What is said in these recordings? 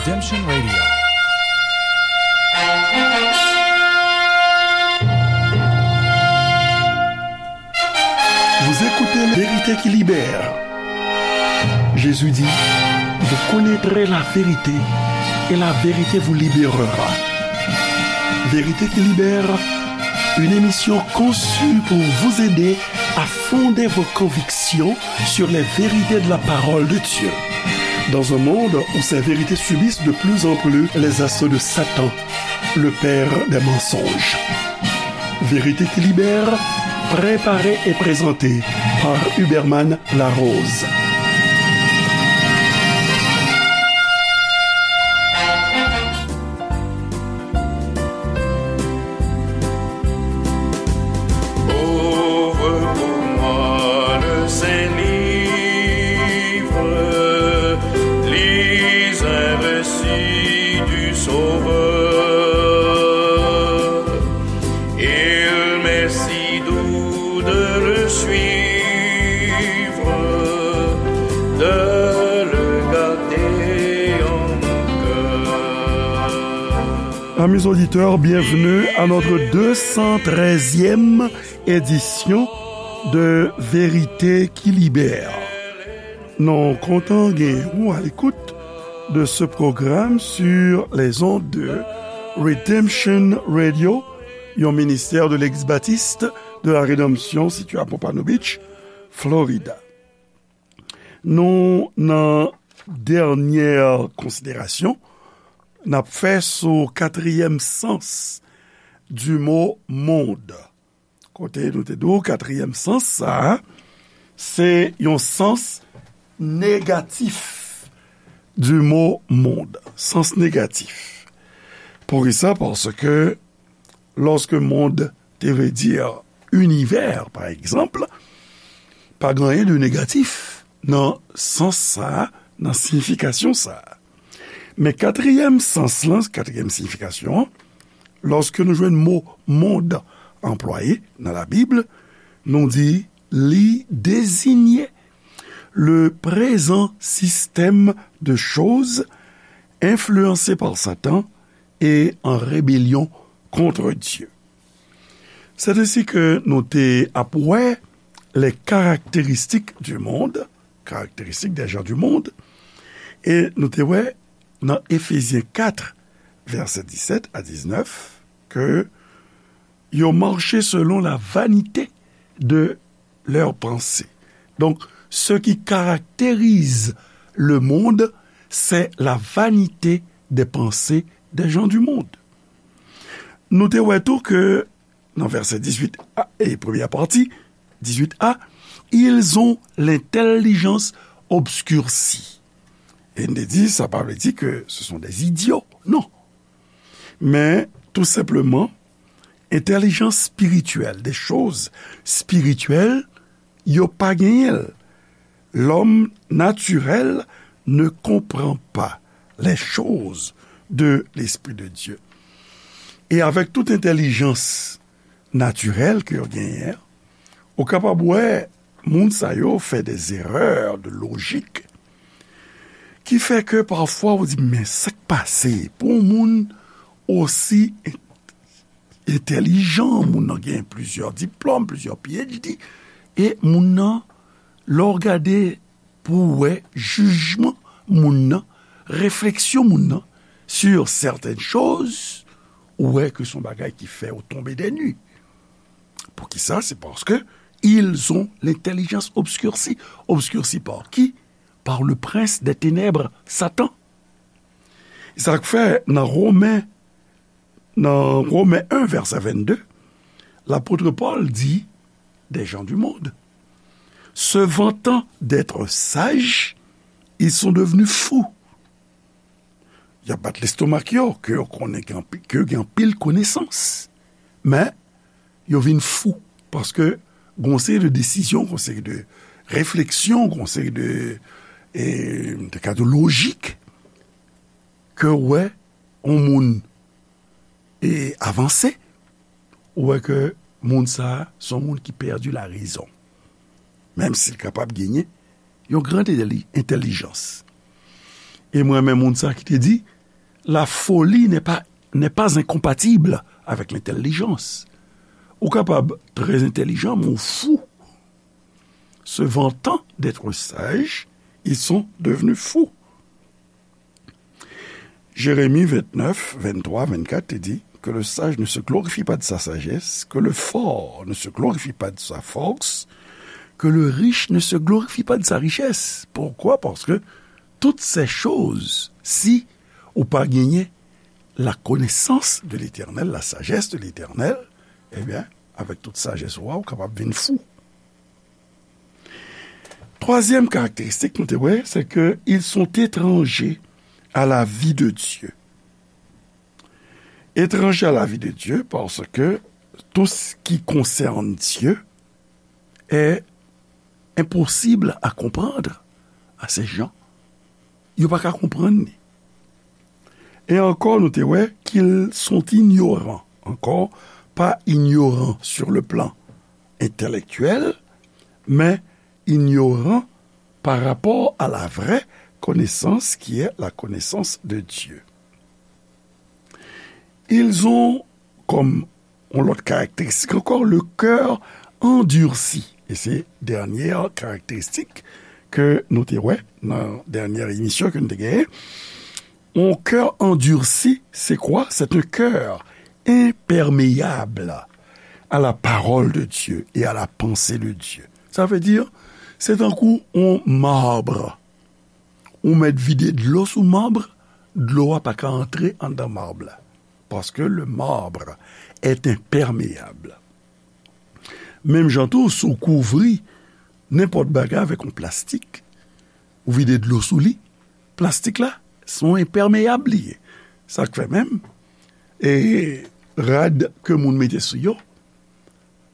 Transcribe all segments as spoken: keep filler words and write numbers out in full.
Redemption Radio. Vous écoutez la vérité qui libère. Jésus dit, vous connaîtrez la vérité et la vérité vous libérera. Vérité qui libère, une émission conçue pour vous aider à fonder vos convictions sur les vérités de la parole de Dieu. Dans un monde où ces vérités subissent de plus en plus les assauts de Satan, le père des mensonges. Vérité qui libère, préparée et présentée par Huberman Larose. Ouvre pour moi le Saint-Livre, lis un récit du Sauveur. Il m'est si doux de le suivre, de le garder en mon cœur. Amis auditeurs, bienvenue à notre deux cent treizième édition de Vérité qui Libère. Nou kontan gen ou à l'écoute de ce programme sur les ondes de Redemption Radio, yon ministère de l'Église baptiste de la Rédemption situé à Pompano Beach, Florida. Nou nan dènyè konsiderasyon n ap fè sou katriyèm sans du mot monde. Kote nou te di w, katriyèm sans sa a, se yon sans negatif du mot monde. Sans negatif. Poukisa? Paske lòske mond te vle di inivè, pa egzanp, pa gen anyen de negatif nan sans sa a, nan siyifikasyon sa a. Men katriyèm sans lan, katriyèm siyifikasyon an, lòske nou jwenn mo mond anplwaye nan Labib, nou di li dezinye le prezan sistèm de choz enfliyanse pa Satan e an rebelyon kont Dye. C'est ainsi que nou te ap wè les caractéristiques du monde, caractéristiques des gens du monde, e nou te wè nan Efezyen kat, vèsè disèt a diznèf, ke yo mache selon la vanité de leurs pensées. Donc, ce qui caractérise le monde, c'est la vanité des pensées des gens du monde. Nou te wè tou ke nan vèsè dizuit a, e premyè pati, dizuit a, ils ont l'intelligence obscurcie. E n te di, sa pa vle di ke ce sont des idiots, non. Men, tou senpleman, entèlijans espirityèl, des choses spirituelles, yo pa genyen l. L'homme naturel ne comprend pas les choses de l'Esprit de Dieu. E avèk tout entèlijans natirèl ke yo genyen, ou kapab wè moun sa yo fè des erreurs de logique ki fè ke pafwa ou di, men sa k pase pou yon moun osi entèlijan, moun nan gen plizyè diplòm, plizyè P H D, e moun nan, lè w gade pou w wè jijman moun nan, refleksyon moun nan sur certaines choses, ou wè ke se yon bagay ki fè w tonbe des nues. Poukisa? C'est parce que ils ont l'intelligence obscurcie. Obscurcie par qui? Par le prince des ténèbres, Satan. Sa k fè nan Romen, nan Romen en, vèsè vennde, lapot Pòl di, des gens du monde, se vantant d'être sages, ils sont devenus fous. Y ap bat lestomak yo, ke yo konnen gen anpi-, ke yo gen anpil konesans. Men, yo vin fou, paske gen yon seri de desizyon, gen yon seri de refleksyon, gen yon seri de, e, de ka de lojik, ke w wè yon moun, e, avanse, ou wè ke moun sa a, se yon moun ki pèdi la rezon. Menm si l kapab genyen yon gran entèli-, entèlijans. E mwen renmen moun sa ki te di, La folie n'est pas, n'est pas incompatible avec l'intelligence. Ou kapab trè entèlijan, men ou fou. Se vantan d'être sage, ils sont devenus fous. Jérémie vingt-neuf, vingt-trois, vingt-quatre te di, que le sage ne se glorifie pas de sa sagesse, que le fort ne se glorifie pas de sa force, que le riche ne se glorifie pas de sa richesse. Pourquoi? Parce que toutes ces choses, si ou pa genyen la connaissance de l'Éternel, la sagesse de l'Éternel, ebyen, avèk tout sajès ou a, ou kapab vin fou. Twazyèm karakteristik nou te wè, c'est que ils sont étrangers à la vie de Dieu. Étrangers à la vie de Dieu, parce que tout ce qui concerne Dieu est impossible à comprendre à ces gens. Yo pa ka konprann li. E ankò, nou te wè qu'ils sont ignorants. Encore, pas ignorants sur le plan intellectuel, mais ignorants par rapport à la vraie connaissance qui est la connaissance de Dieu. Ils ont comme yon lòt karakteristik ankò, le cœur endurci. E se dènyè karakteristik ke nou te wè nan dènyè emisyon ke nou te genyen. Un cœur endurci, c'est quoi? C'est un cœur imperméable à la parole de Dieu et à la pensée de Dieu. Sa vle di, se tankou yon mab. Ou mèt vide dlo sou mab, dlo a pa ka antre anndan mab la. Parce que le marbre est imperméable. Menm jan tou, si w kouvri nenpòt bagay avèk yon plastik, ou vide dlo sou li, plastik la, se yon enpèmeyab li ye. Sa k fè menm, e rad ke moun mete sou yo,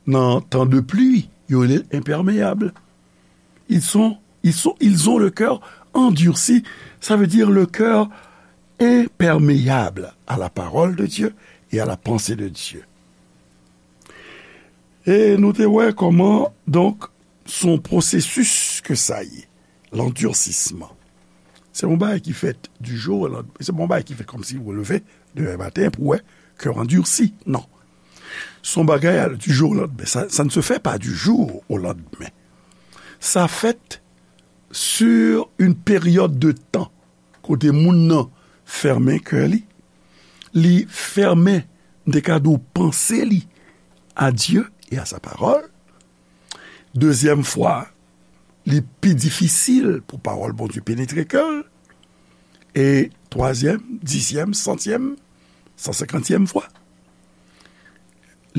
nan tan de pli, yo rele l enpèmeyab. Ils sont, ils sont, ils ont le cœur endurci, ça veut dire le cœur imperméable à la parole de Dieu et à la pensée de Dieu. E nou te wè kòman, donk, se yon pwosesis ke sa ye, landirsisman. Se yon bagay ki fèt du jour au lendemain, se pa yon bagay ki fèt kòmsi ou leve demen maten pou wè kè w andursi, non. Se yon bagay a du jour au lendemain, ça, ça ne se fait pas du jour au lendemain. Sa fèt sur une période de temps, kote moun nan fèmen kè li, li fèmen, m te ka di w, panse li à Dieu et à sa parole. Dezyèm fwa, li pi difisil pou pawòl Bondye penetre kè l. E twazyèm, dizyèm, santyèm, san senkantyèm fwa,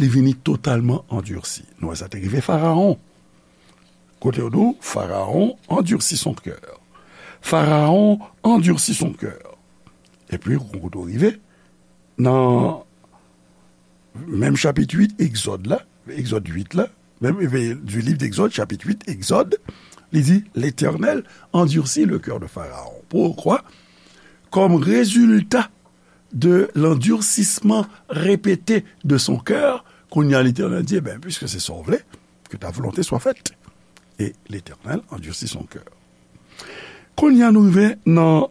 li vini totalman andursi. Nou wè sa te rive Farawon. Kote yo di w, Pharaon endurcit son cœur. Pharaon endurcit son cœur. Epi, kote w rive, nan menm chapit uit, Egzòd la, Egzòd uit la, menm, e, du livre d'Exode, chapitre huit, Exode, li di, L'Éternel endurcit le cœur de Pharaon. Pourquoi? Comme résultat de l'endurcissement répété de son cœur, kounye a Letènèl di, ben, puiske se sa w vle, que ta volonté soit faite. Et l'Éternel endurcit son cœur. Kounye a nou rive nan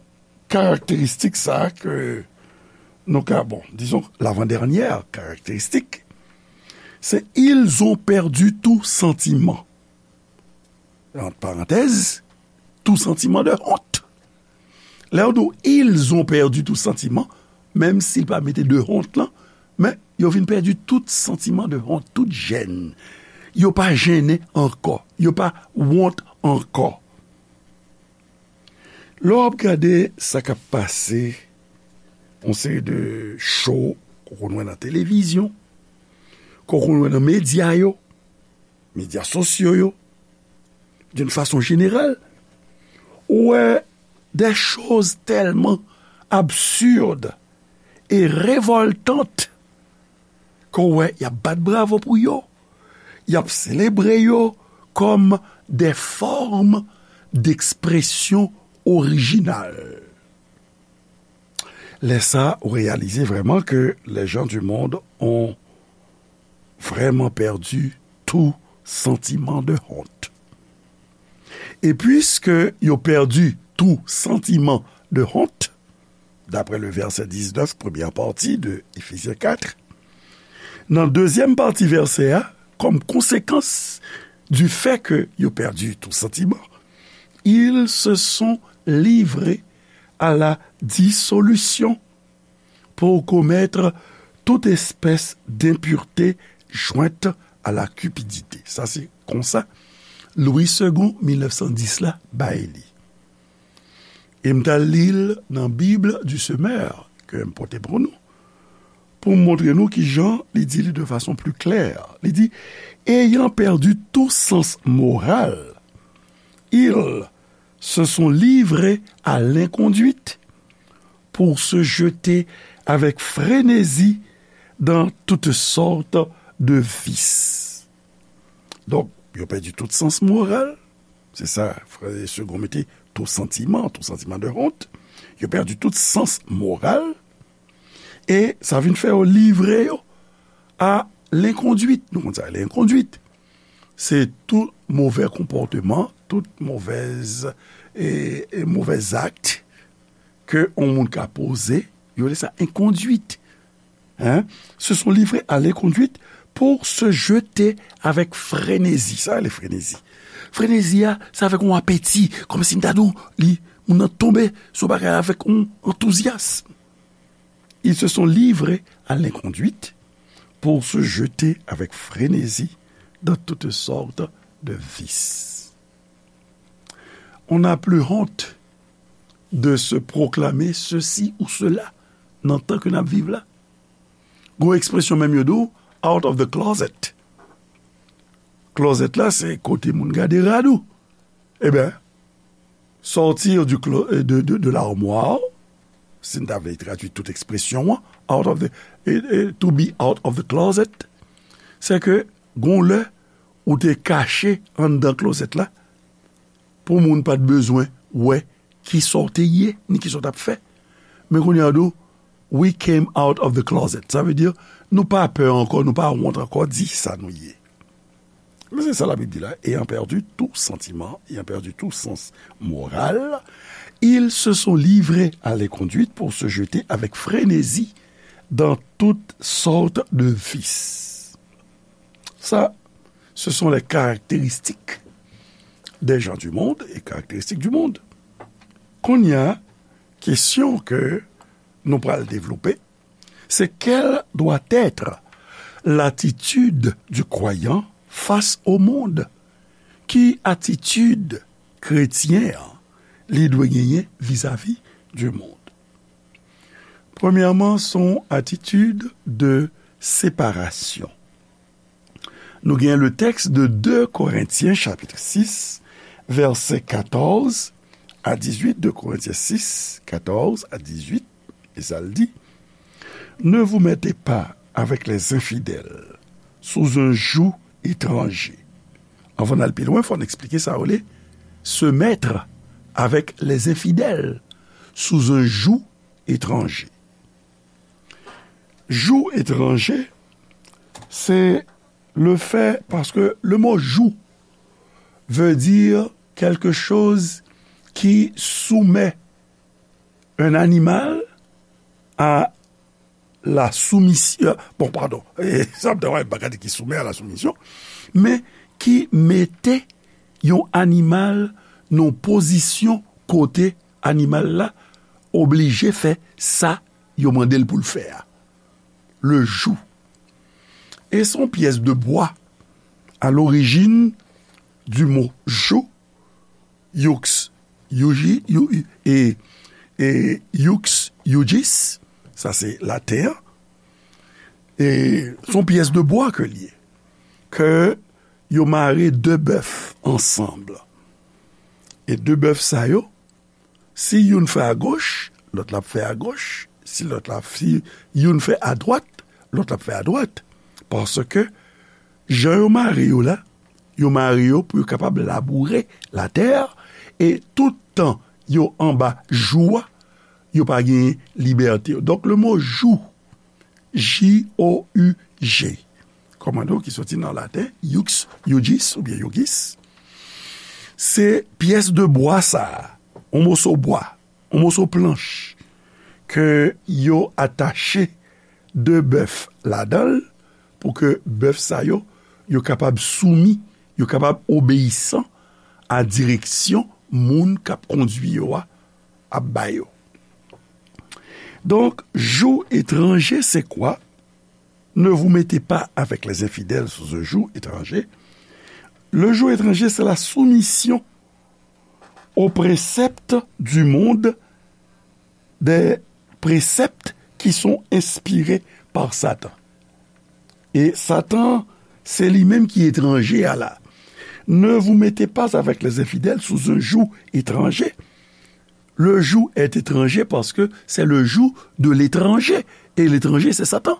karakteristik sa a ke nou ka, bon, disons, l'avant-dernière caractéristique, c'est ils ont perdu tout sentiment. Entre parenthèses, tout sentiment de honte. Lè yo di w, ils ont perdu tout sentiment, menm si l pa mete de honte lan, men yo vin pèdi tout santiman de honte, tout jèn. Yo pa jennen ankò, yo pa wont ankò. Lè w ap gade sa k ap pase, yon seri de show ke w konn wè nan televizyon, ke w konn wè nan medya yo, medya sosyo yo, d'une façon générale, ou wè des choses tellement absurdes et révoltantes ke w wè y ap bat bravo pou yo, y ap selebre yo comme des formes d'expression originales. Lè sa, ou reyalize vrèman ke les gens du monde ont vraiment perdu tout sentiment de honte. E puiske yo pèdi tou santiman de honte, d'après le verset dix-neuf, première partie de Éphésiens quatre, nan dezyèm pati vèsè a, comme conséquence du fait que yo pèdi tout sentiment, ils se sont livrés à la dissolution pour commettre toute espèce d'impureté jointe à la cupidité. Sa se konsa Louis Segond, mil nèf san dis la, bay li. E m t al li l nan Bible du Semeur ke m pote pou nou, pou m montre nou kijan li di li de fason pli klè. Li di, ayant perdu tout sens moral, ils se sont livrés à l'inconduite pour se jeter avec frénésie dans toutes sortes de vices. Donk, yo pèdi tout sans moral. Se sa, frè Segond mete, tout sentiment, tout sentiment de honte. Yo pèdi tout sans moral. E sa vin fè yo livre yo a lenkondwit. Nou konn sa, lenkondwit. Se tout move konpòteman, tout movèz, e, e movèz akt ke yon moun ka poze, yo rele sa enkondwit. Hein? Se sont livrés à l'inconduite pour se jeter avec frénésie. Sa rele frenezi. Frenezi a, se avèk yon apeti, kòmsi m ta di w, li, moun nan tonbe sou bagay avèk yon antouzyasm. Ils se sont livrés à l'inconduite pour se jeter avec frénésie dans toutes sortes de vices. On n'a plus honte de se proclamer ceci ou cela nan tan ke n ap viv la. Gon ekspresyon menm yo di w, out of the closet. Closet la, se kote moun gade rad ou. Eben, sortir du clo-, de, de, de l'armoire, si n ta vle tradui tout ekspresyon an, out of the, e, e, to be out of the closet, se ke gon lè ou te kache anndan klozèt la, pou moun pa t bezwen wè kisa w te ye, ni kisa w t ap fè. Men kounye a, yo di w, we came out of the closet. Sa vle di, nou pa pè ankò, nou pa wont ankò di sa nou ye. Men se sa Labib di la, ayant perdu tout sentiment, ayant perdu tout sens moral, ils se sont livrés à l'inconduite pour se jeter avec frénésie dans toutes sortes de vices. Ça, ce sont les caractéristiques des gens du monde et caractéristiques du monde. Kounye a, kesyon ke nou pral devlope, c'est quelle doit être l'attitude du croyant face au monde? Ki atitid kretyen an li dwe genyen vizavi du monde? Premyèman, se yon atitid de separasyon. Nou gen le texte de deux Corinthiens chapitre six, verset quatorze à dix-huit, deux Corinthiens six, quatorze à dix-huit, e sa l di, ne vous mettez pas avec les infidèles sous un joug étranger. Anvan n al pi lwen, fò n eksplike sa yo rele se mettre avec les infidèles sous un joug étranger. Joug étranger, c'est le fait, parce que le mot joug veut dire quelque chose qui soumet un animal à la soumission. Bon, pardon, sa m ta wè, m pa ka di ki soumet à la soumission, men ki mete yon animal nan yon pozisyon kote animal la oblije fè sa yo mande l pou l fè a. Le joug. E se yon pyès de bwa à l'origine du mot joug, youx, yougi, you, e, e, youx, iugis, sa se laten an. E se yon pyès de bwa ke l ye, ke yo mare de bèf ansanm. E de bèf sa yo, si youn fè agoch, lòt la ap fè agoch. Si lòt la, si youn fè adwat, lòt la ap fè adwat. Paske jan yo mare yo la, yo mare yo pou yo kapab laboure latè a, e tout tan yo anba joug a, yo pa gen libète yo. Donk, le mot joug, J O U G, kòmande w ki soti nan laten, iux, iugis oubyen iugis, se pyès de bwa sa a, yon moso bwa, yon moso planch, ke yo atache de bèf ladan l, pou ke bèf sa yo, yo kapab soumi, yo kapab obeyisan a direksyon moun k ap kondui yo a ap ba yo. Donk, jou etranje, se kwa? Ne vous mettez pas avec les infidèles sous un joug étranger. Le joug étranger, c'est la soumission aux préceptes du monde, des préceptes qui sont inspirés par Satan. E Satan, se li menm ki etranje a la. Ne vous mettez pas avec les infidèles sous un joug étranger. Le joug est étranger parce que c'est le joug de l'étranger. Et l'étranger, c'est Satan.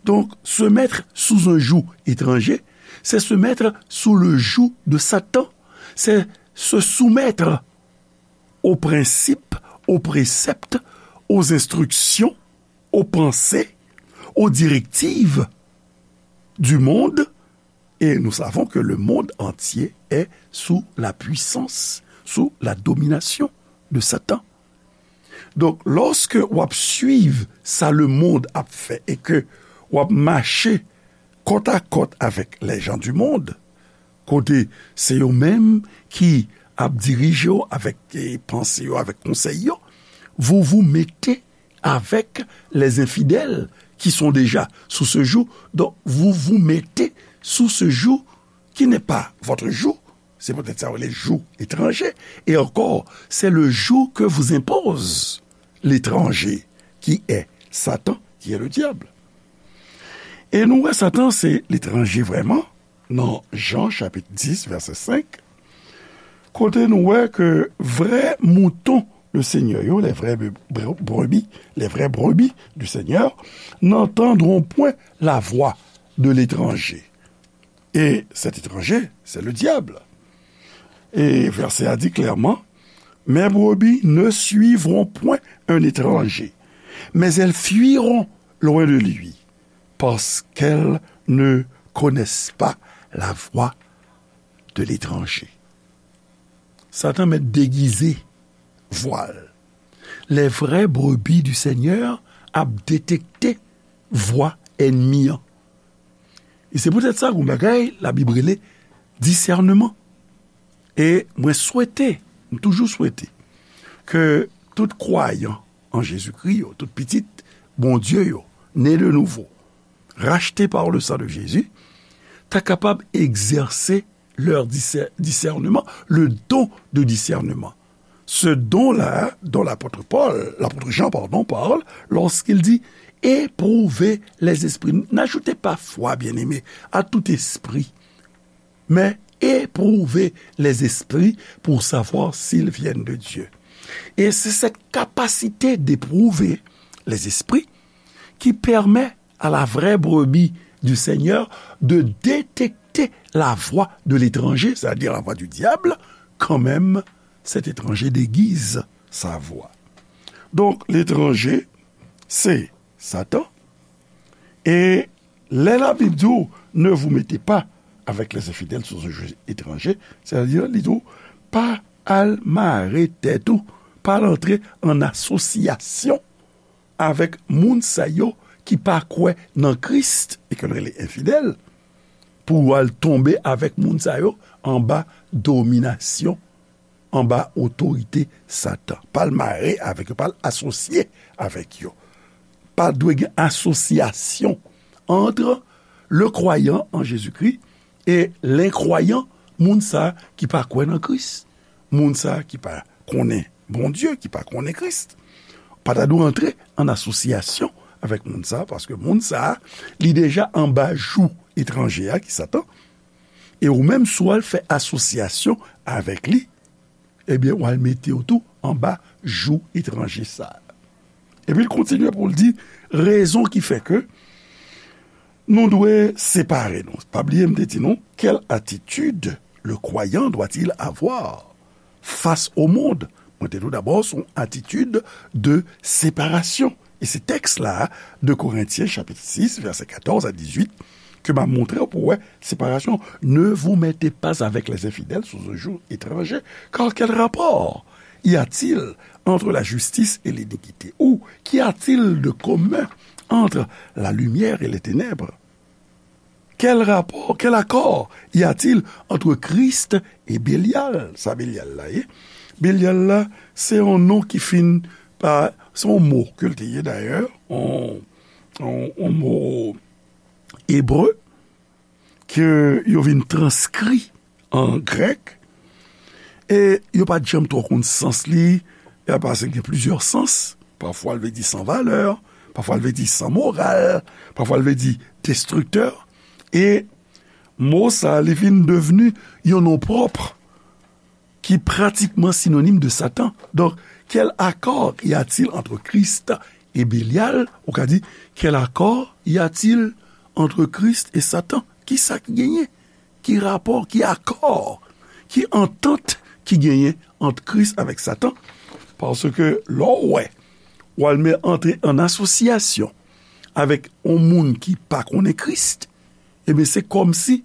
Donc, se mettre sous un joug étranger, c'est se mettre sous le joug de Satan. C'est se soumettre aux principes, aux préceptes, aux instructions, aux pensées, aux directives du monde. Et nous savons que le monde entier est sous la puissance, sous la domination de Satan. Donk, lòske w ap swiv sa lemonn ap fè e ke w ap mache kòtakòt avèk les gens du monde, kote se yo menm ki ap dirije w avèk, e, panse yo, avèk konsèy yo, vous vous mettez avec les infidèles qui sont déjà sous ce joug. Donc, vous vous mettez sous ce joug qui n'est pas votre joug. C'est peut-être ça, le joug étranger. Et encore, c'est le joug que vous impose l'étranger, qui est Satan, qui est le diable. E nou wè Satan se letranje vrèman nan Jan chapit dis vèsè senk, kote nou wè ke vrè mouton le Seigneur yo, les vraies bre-, bre-, brebis, les vraies brebis du Seigneur, n'entendront point la voix de l'étranger. Et cet étranger, c'est le diable. Et verset a dit clairement, mes brebis ne suivront point un étranger, mais elles fuiront loin de lui, parce qu'elles ne connaissent pas la voix de l'étranger. Satan mèt degize vwa l. Les vraies brebis du Seigneur ap detekte vwa ènmi an. E se poutèt sa, gon bagay, Labib rele disèneman. E mwen swete, m toujou swete, ke tout kwayan an Jezikri yo, tout pitit Bondye yo, ne de nouvo, racheté par le sang de Jésus, ta kapab egzèse leur disè-, discernement, le don de discernement. Ce don-là, dont l'apôtre Paul, l'apôtre Jean, pardon, parle lorsqu'il dit, éprouvez les esprits. N'ajoutez pas foi, bien-aimés, à tout esprit, mais éprouvez les esprits pour savoir s'ils viennent de Dieu. Et c'est cette capacité d'éprouver les esprits qui permet à la vraie brebis du Seigneur de détecter la voix de l'étranger, c'est-à-dire la voix du diable, quand même cet étranger déguise sa voix. Donc, l'étranger, c'est Satan. E lè Labib di w, ne vous mettez pas avec les infidèles sous un joug étranger, c'est-à-dire, li di w, pa al mare tèt ou, pa al antre an asosyasyon avèk moun sa yo ki pa kwè nan Kris e ke l rele enfidèl, pou w al tonbe avèk moun sa yo anba dominasyon, anba otorite Satan. Pa al mare avèk yo, pa al asosye avèk yo. Pa dwe gen asosyasyon ant le kwayan an Jezikri e lenkwayan, moun sa ki pa kwè nan Kris, moun sa ki pa konnen Bondye, ki pa konnen Kris. Pa ta dwe antre an asosyasyon avèk moun sa, paske moun sa, li deja anba jou etranje a, ki Satan. E ou menm, si w al fè asosyasyon avèk li, ebyen, w al mete w tou anba jou etranje sa a. Epi l kontinye pou l di, rezon ki fè ke nou dwe separe nou. Pa bliye, m te di nou, quelle attitude le croyant doit-il avoir face au monde? Mwen te di w dabò, se yon atitid de separasyon. E se tèks la, de Korentyen, chapit sis, vèsè katòz a dizuit, ke m a montre w pou wè separasyon. Ne vous mettez pas avec les infidèles sous un joug étranger, car quel rapport y a-t-il entre la justice et l'iniquité? Ou qu'y a-t-il de commun entre la lumière et les ténèbres? Quel rapport, quel accord y a-t-il entre Christ et Bélial? Sa Bélial la ye? Bélial la, se yon non ki fin pa, se yon mo ke l te ye dayè, yon, yon, yon mo ebre, ke yo vin transkri an grèk, e yo pa t janm twò konn sans li, e paske gen plizyè sans. Pafwa l vle di san valè, pafwa l vle di san moral, pafwa l vle di destriktè. E mo sa, li vin devni yon non pwòp ki pratikman sinonim de Satan. Donc, quel accord y a-t-il entre Christ et Bélial? Ou ka di, quel accord y a-t-il entre Christ et Satan? Ki sa ki genyen? Ki rapò, ki akò, ki antant ki genyen ant Kris avèk Satan? Paske lè w wè, w al men antre an asosyasyon avèk yon moun ki pa konnen Kris, ebyen, se kòmsi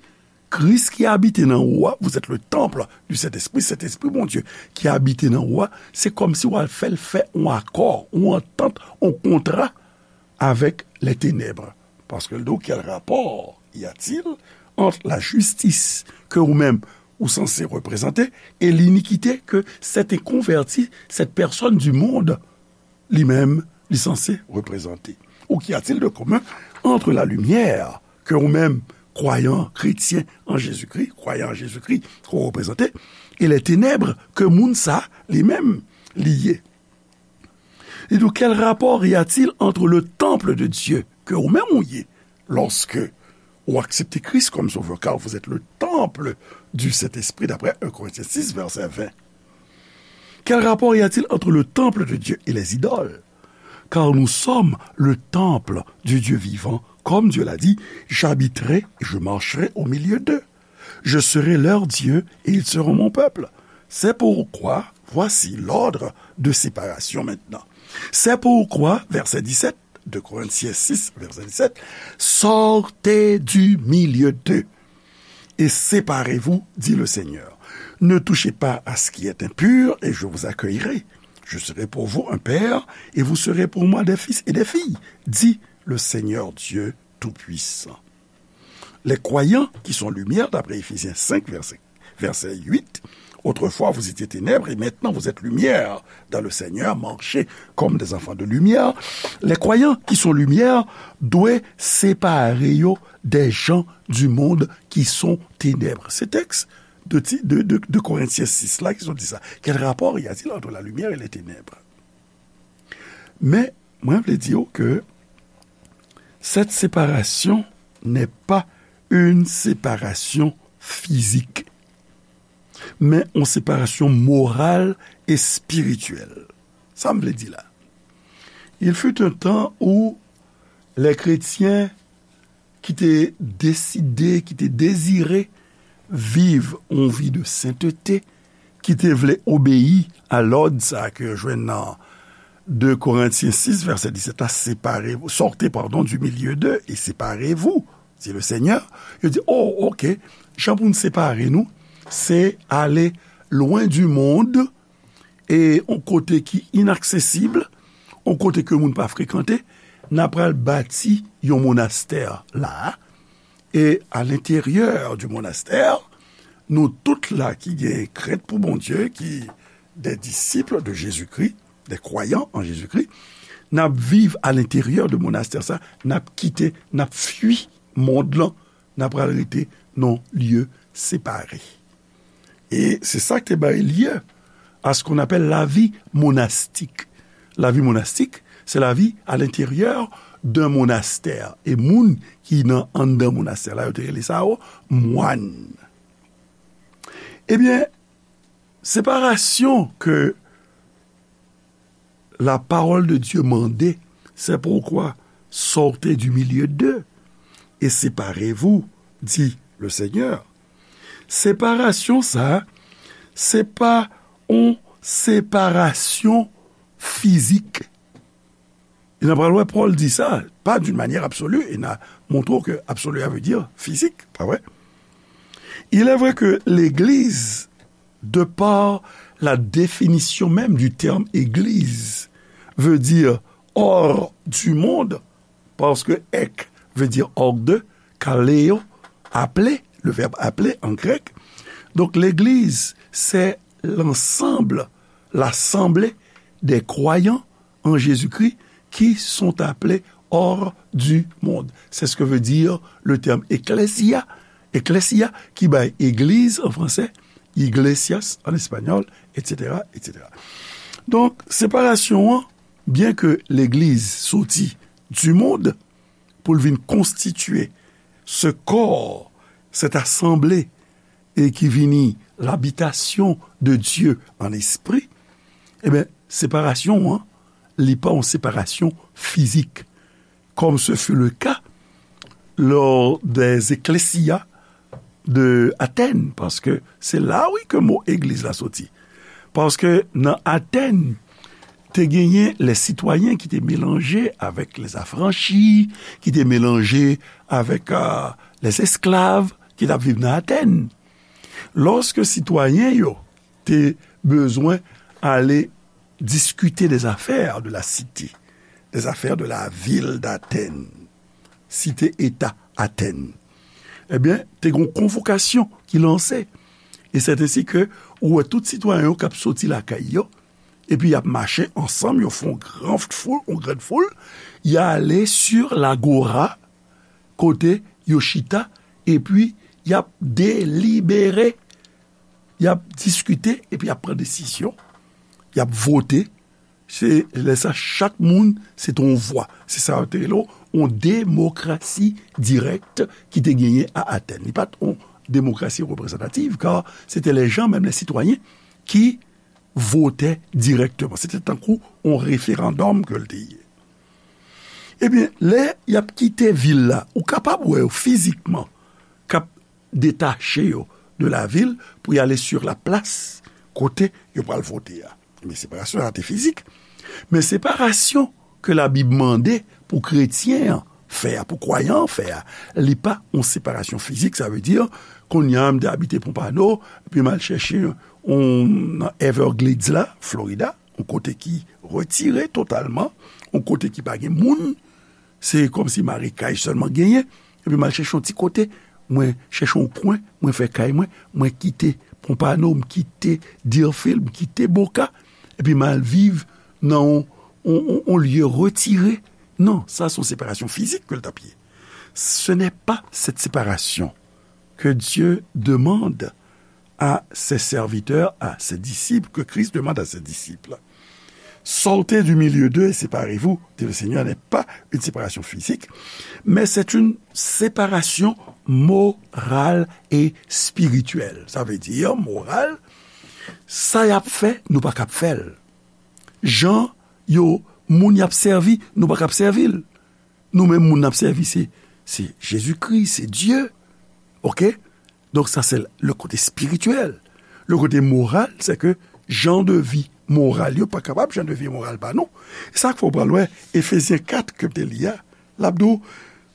Kris ki abite nan ou a, vous êtes le temple du Saint-Esprit, Sentespri Bondye ki abite nan ou a, se kòmsi w al fè l fè yon akò, yon antant, yon kontra avec les ténèbres. Paske l di w, quel rapport y a-t-il entre la justice que ou menm ou sanse reprezante et l'iniquité que cet inconverti, cette personne du monde, li menm, li sanse reprezante? Ou qu'y a-t-il de commun entre la lumière que ou menm, kwayan, kretyen an Jezikri, kwayan an Jezikri ke w reprezante, e les ténèbres ke moun sa, li menm, li ye? Li di w, quel rapport y a-t-il entre le temple de Dieu ke ou menm ou ye, lorsque ou aksepte Kris kòm sovè, car vous êtes le temple du Saint-Esprit, d'après un Corinthiens six, verset vingt? Quel rapport y a-t-il entre le temple de Dieu et les idoles? Car nous sommes le temple du Dieu vivant, comme Dieu l'a dit, j'habiterai et je marcherai au milieu d'eux. Je serai leur Dieu et ils seront mon peuple. C'est pourquoi, voici l'ordre de séparation maintenant. C'est pourquoi, verset dix-sept, deux Corinthiens six, verset dix-sept, sortez du milieu d'eux et séparez-vous, dit le Seigneur. Ne touchez pas à ce qui est impur et je vous accueillerai. Je serai pour vous un père et vous serez pour moi des fils et des filles, dit le Seigneur Dieu Tout-Puissant. Les croyants qui sont lumière, d'après Éphésiens cinq, verset, verset huit, autrefois vous étiez ténèbres et maintenant vous êtes lumière dans le Seigneur, marchez comme des enfants de lumière. Les croyants qui sont lumière doivent séparer yo des gens du monde qui sont ténèbres. Ces textes de, de, de, de Corinthiens six là, qui sont dit ça. Quel rapport y a-t-il entre la lumière et les ténèbres? Men, mwen vle di w ke cette séparation n'est pas une séparation physique, men yon separasyon moral e espirityèl. Sa m vle di la? Il fut un temps où les chrétiens ki te deside, ki te dezire viv yon vi de senteté, ki te vle obeyi a lòd sa a ke yo jwenn nan deux Corinthiens six, verset dix-sept la, séparez-vous, sortez, pardon, du milieu d'eux et séparez-vous, dit le Seigneur. Yo di, oh, ok, jan pou n separe nou, se ale lwen di mond, e yon kote ki inaksesib, yon kote ke moun pa frekante, n a pral bati yon monastè la, e a lenteryè di monastè, nou tout la ki gen krent pou Bondye, ki des disciples de Jésus-Christ, des croyants en Jésus-Christ, n ap viv a lenteryè de monastè sa, n ap kite, n ap fui mond lan, n ap pral rete nan lye separe. E se sa ki te bay lye à ce qu'on appelle la vie monastique. La vie monastique, c'est la vie à l'intérieur d'un monastère. E moun ki nan anndan monastè la, yo te rele sa yo mwan. Ebyen, separasyon ke la parole de Dieu mande, c'est pourquoi sortez du milieu d'eux et séparez-vous, dit le Seigneur. Separasyon sa, se pa yon separasyon fizik. E n a pral wè Pòl di sa, pas d'une manière absolue, e n a montre w ke absolue a vle di fizik, pa vre? Il est vrai que l'Église De par la définition même du terme église, veut dire hors du monde, parce que ek veut dire hors de, kaleo, appeler, le verbe appeler en grec. Donc l'église, c'est l'ensemble, l'assemblée des croyants en Jésus-Christ qui sont appelés hors du monde. C'est ce que veut dire le terme ecclesia, ecclesia, ki bay église en français, iglesias en espagnol, et cetera, et cetera. Donk, separasyon an, byen ke legliz soti du monde pou l vin konstitye ce corps, cette assemblée, et qui vini l'habitation de Dieu en esprit, ebyen, separasyon an, li pa yon separasyon fizik, comme ce fut le cas lors des ecclesia de Athènes, paske se la, wi, ke mo egliz la soti. Paske nan Athènes, te genyen les citoyens ki te melanje avèk les affranchis, ki te melanje avèk, euh, les esclaves ki t ap viv nan Athènes. Lòske sitwayen yo te bezwen ale diskite des affaires de la cité, des affaires de la ville d'Athènes, site eta Athènes, ebyen, te gen yon konvokasyon ki lanse. E c'est ainsi que ou wè tout sitwayen yo k ap soti lakay yo, epi y ap mache ansanm, yo fè yon gran foul, yon gran foul, y ale sur l'agora, kote yo chita, epi y ap delibere, y ap diskite, epi y ap pran desizyon, y ap vote. Se lè sa, chak moun, se te yon vwa. Se sa yo te rele yon demokrasi dirèk ki te genyen a Atèn. Li pa t yon demokrasi reprezantativ, kar se te les gens, menm les citoyens, ki vote dirèkteman. Se te tankou yon referandòm ke l te ye. Ebyen, lè y ap kite vil la, ou kapab wè yo fizikman k ap detache yo de la vil pou y ale sur la plas kote yo pral vote a. Men separasyon sa te fizik. Men separasyon ke Labib mande pou kretyen an fè a, pou kwayan an fè a, li pa yon separasyon fizik. Sa vle di, kounye a, m te abite Pompano, epi m al chèche yon, nan Everglades la, Florida, yon kote ki retire totalman, yon kote ki pa gen moun, se kòmsi marekaj sèlman genyen, epi m al chèche yon ti kote, mwen chèche yon kwen, mwen fè kay mwen, mwen kite Pompano, m kite Deerfield, m kite Boca, epi m al viv nan yon, yon, yon, yon lye retire. Non, sa se yon separasyon fizik ke l t ap ye. Ce n'est pas cette séparation que Dieu demande à ses serviteurs, à ses disciples, que Christ demande à ses disciples. Sortez du milieu d'eux et séparez-vous, dit le Seigneur, n'est pas une séparation physique, mais c'est une séparation morale et spirituelle. Sa vle di, moral, sa y ap fè, nou pa kab fè l. Jan yo, moun y ap sèvi, nou pa kab sèvi l. Nou menm, moun n ap sèvi, se, se Jezikri, se Dye. Oke? Donk, sa se le kote espirityèl. Le kote moral, se ke jan de vi moral yo pa kapab jan de vi moral pa nou. E sa k fè w pral wè Efezyen kat ke m te li a, l ap di w,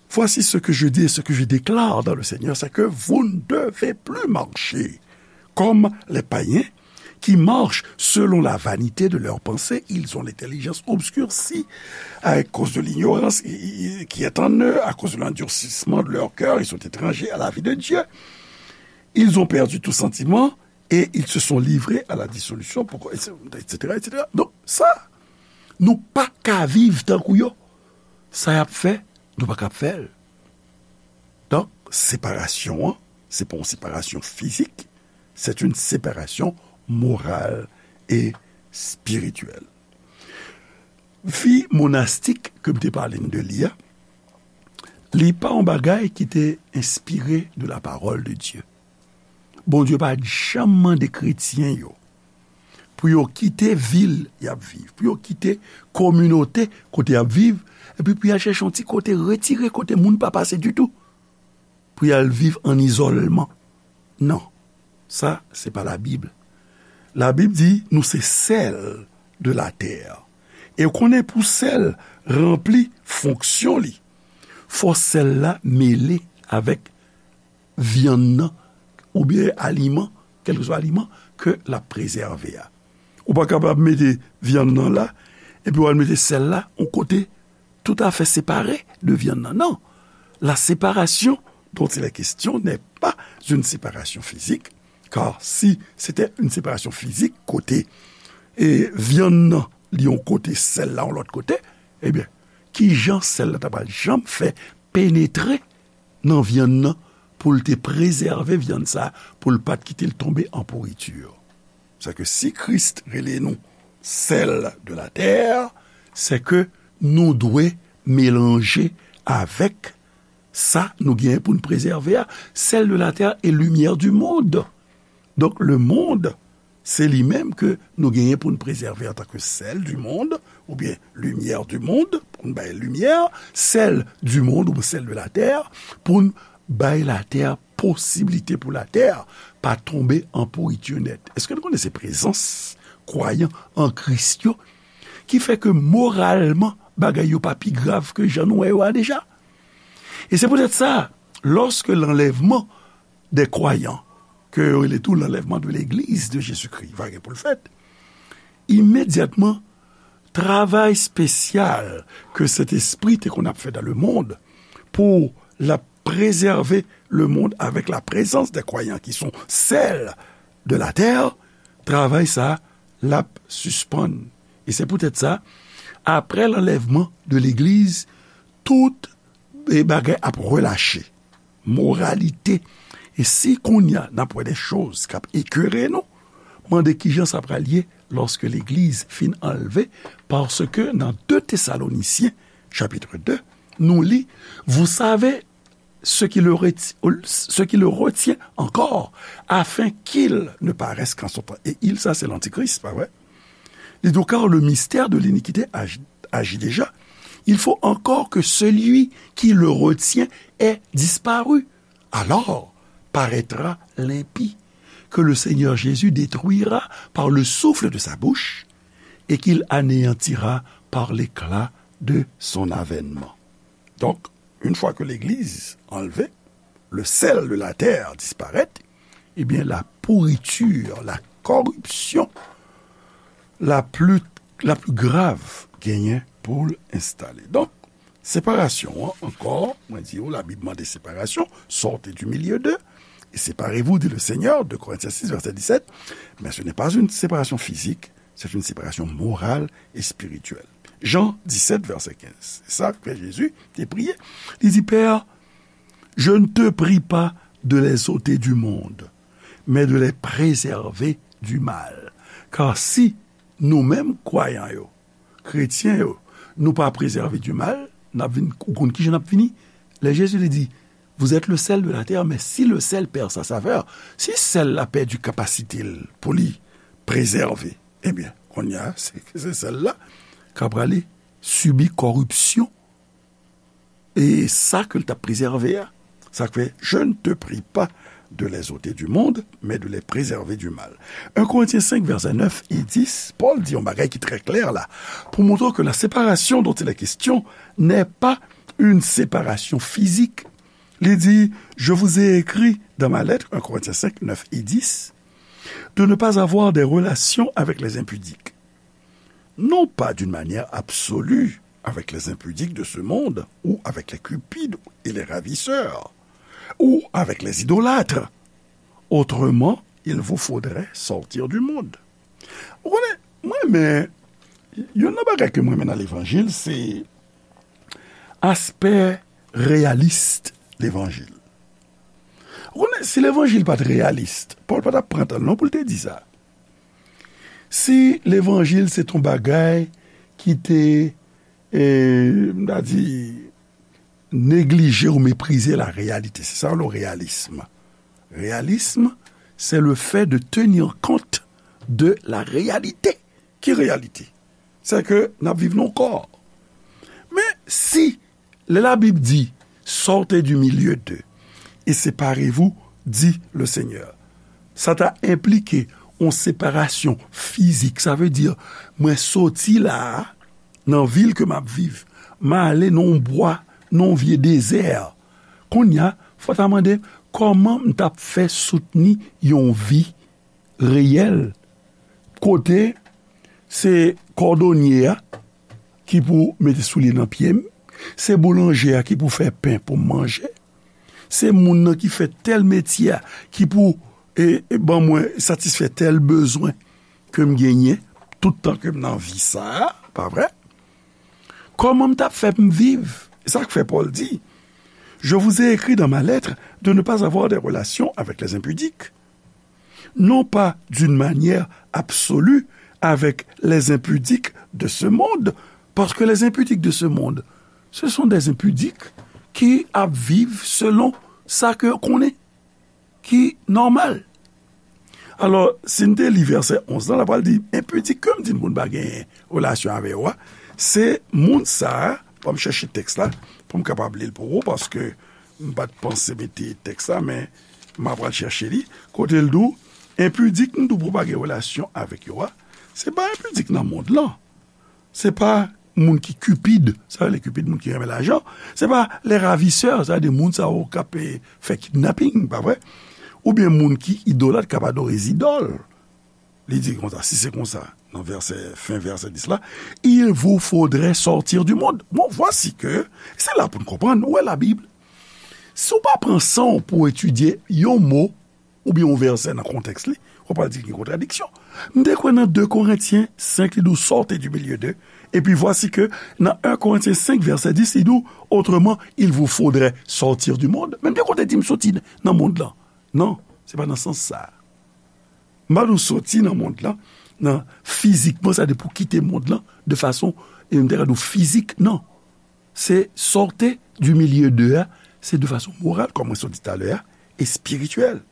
voici ce que je dis et ce que je déclare dans le Seigneur, c'est que vous ne devez plus marcher comme les païens qui marchent selon la vanité de leurs pensées. Ils ont l'intelligence obscurcie à cause de l'ignorance qui est en eux, à cause de l'endurcissement de leur cœur. Ils sont étrangers à la vie de Dieu. Ils ont perdu tout sentiment et ils se sont livrés à la dissolution, pour, et cetera, et cetera. Donk, sa, nou pa ka viv tankou yo. Sa y ap fè, nou pa kab fè l. Donk, separasyon an, se pa yon separasyon fizik, c'est une séparation morale et spirituelle. Vi monastik ke m te pale n de li a, li pa yon bagay ki te enspire de la parole de Dieu. Bondye pa t janm mande kretyen yo pou yo kite vil y ap viv, pou yo kite kominote kote y ap viv, epi pou y al chèche yon ti kote retire kote moun pa pase ditou, pou y al viv an izòlman. Non, sa, se pa Labib. Labib di nou se sèl de la tè. E w konnen pou sèl ranpli fonksyon li, fò sèl la mele avèk vyann nan, oubyen aliman, kèlkeswa aliman, ke l ap prezève a. Ou pa kapab mete vyann nan la, epi w al mete sèl la yon kote toutafè separe de vyann nan. Non. La séparation dont il est question n'est pas une séparation physique, car si c'était une séparation physique, kote e vyann nan li yon kote, sèl la yon lòt kote, ebyen, ki jan sèl la ta pral janm fè penetre nan vyann nan pou l te prezève vyann sa a, pou l pa t kite l tonbe an pouriti? Sè ke si Kris rele nou sèl de la tè, sè ke nou dwe melanje avèk sa nou genyen pou n prezève a. Sèl de la tè e limyè di mond. Donk, le monde, se li menm ke nou genyen pou n prezève antanke sèl di mond, oubyen limyè di mond, pou n bay limyè, sèl di mond ou sèl de la tè, pou n bay latè posiblite pou latè pa tonbe an pouriti nèt. Èske nou konnen se prezans kwayan an Kris yo ki fè ke moralman bagay yo pa pi grav ke jan nou wè yo a deja? E se poutèt sa, lòske lanlèvman de kwayan, ke yo rele tou lanlèvman de legliz de Jezikri, va gen pou l fèt, imedyatman, travay espesyal ke Sentespri te konn ap fè dans le monde pou l ap prezève le monde avec la présence des croyants qui sont seuls de la terre, travay sa a, l ap sispann. E se poutèt sa, apre lanlèvman de legliz, tout e bagay ap relache. Moralite. E si kounye a n ap wè de choz k ap ekere nou, mande kijan sa pral ye lòske legliz fin anlve, paske nan de Tesalonisyen, chapitre de, nou li, vous savez ce qui le reti-, ce qui le retient encore, afin qu'il ne paraisse qu'en son temps. E il, sa se lantikris, pa vre? Li di, car le mystère de l'iniquité agi, agit déjà. Il faut encore que celui qui le retient ait disparu. Alors paraîtra l'impie, que le Seigneur Jésus détruira par le souffle de sa bouche et qu'il anéantira par l'éclat de son avènement. Donk, yon fwa ke legliz anlve, le sèl de la tè disparèt, ebyen, la pourriture, la corruption la plus, la plus grave genyen pou l enstale. Donk, separasyon an, ankò, mwen di w, Labib mande separasyon, sortez du milieu d'eux, et séparez-vous, dit le Seigneur, deux Corinthiens six, verset dix-sept, mais ce n'est pas une séparation physique, c'est une séparation morale et spirituelle. Jan disèt, vèsè kenz. Se sa ke Jezi te priye. Li di, Père, je ne te prie pas de les ôter du monde, mais de les préserver du mal. Car si nou menm kwayan yo, kretyen yo, nou pa prezève du mal, n ap vin, ou konn kijan n ap fini? Lè Jezi li di, vous êtes le sel de la terre, mais si le sel perd sa saveur, si sèl la pèdi kapasite l pou li prezève, ebyen, kounye a, se, se sèl la k ap prale sibi kòripsyon. E sa ke l t ap prezève a, sa k fè, je ne te prie pas de les ôter du monde, mais de les préserver du mal. Un Corinthiens cinq, verset neuf et dix, Pòl di yon bagay ki trè klè la, pou montre ke la séparation dont il est question n'est pas une séparation physique. Li di, je vous ai écrit dans ma lettre, un Corinthiens cinq, neuf et dix, de ne pas avoir des relations avec les impudiques. Non pas d'une manière absolue avec les impudiques de ce monde, ou avec les cupides et les ravisseurs, ou avec les idolâtres. Autrement, il vous faudrait sortir du monde. Ou konnen, mwen, men, youn nan bagay ke mwen renmen nan levanjil, se aspè reyalis levanjil. Ou konnen, si levanjil pa t reyalis, Pòl pa t ap pran tan l non pou l te di sa. Si levanjil se t on bagay ki te, e, m ta di, neglije ou meprize la réalité, se sa yo rele reyalism. Reyalism, c'est le fait de tenir compte de la réalité. Ki reyalite? Se ke n ap viv nan yon kò. Men si lè Labib di, sortez du milieu d'eux et séparez-vous, dit le Seigneur, sa ta enplike yon separasyon fizik. Sa vle di, mwen soti la a, nan vil ke m ap viv, m ale nan yon bwa, nan yon vye dezè. Kounye a, fò w ta mande, kòman m t ap fè soutni yon vi reyèl, kote se kòdonye a ki pou mete soulye nan pye m, se boulanje a ki pou fè pen pou m manje, se moun nan ki fè tèl metye a ki pou e, e ban mwen satisfè tèl bezwen ke m genyen tout tan ke m nan vi sa a, pa vre? Kòman m t ap fè pou m viv? E sa k fè Pòl di, Je vous ai écrit dans ma lettre de ne pas avoir des relations avec les impudiques, non pas d'une manière absolue avec les impudiques de ce monde, parce que les impudiques de ce monde, ce sont des impudiques ki ap viv selon sa ke konnen ki nòmal. Alò, si n te li vèsè onz lan, l ap pral di, enpidik ke m di n pou n pa genyen relasyon avè yo a, se moun sa a, ban m chèche tèks la, pou m kapab li l pou ou, paske m pa t panse mete tèks la, men m ap pral chèche li, kote l di w, enpidik m di w pou w pa gen relasyon avèk yo a, se pa enpidik nan mond lan. Se pa moun ki kipid, sa vle Kipid, moun ki renmen lajan. Se pa les ravisseurs, sa vle di moun sa yo k ap, eh, fè kidnaping, pa vre? Oubyen moun ki idolat, k ap adore zidòl. Li di konsa, si se konsa, nan vèsè, fen vèsè dis la, il vous faudrait sortir du monde. Bon, voici que, se la pou n konprann, ou wè Labib. Si w pa pran san w pou w etidye yon mo, oubyen yon vèsè nan kontèks li, w ap pral di gen kontradiksyon. M te kwè nan de Korentyen senk, li di w, sortez du milieu d'eux. Epi voici que nan un Corinthiens cinq, verset dix, li di w, autrement, il vous faudrait sortir du monde. Men m te konn di m soti nan mond lan. Non, se pa nan sans sa. M pa di w soti nan mond lan, nan fizikman, sa vle di pou kite mond lan, de fason, e m te ka di w fizik, non. Se sortez du milieu d'eux a, se de fason moral, kòm mwen sot di talè a, espirityèl.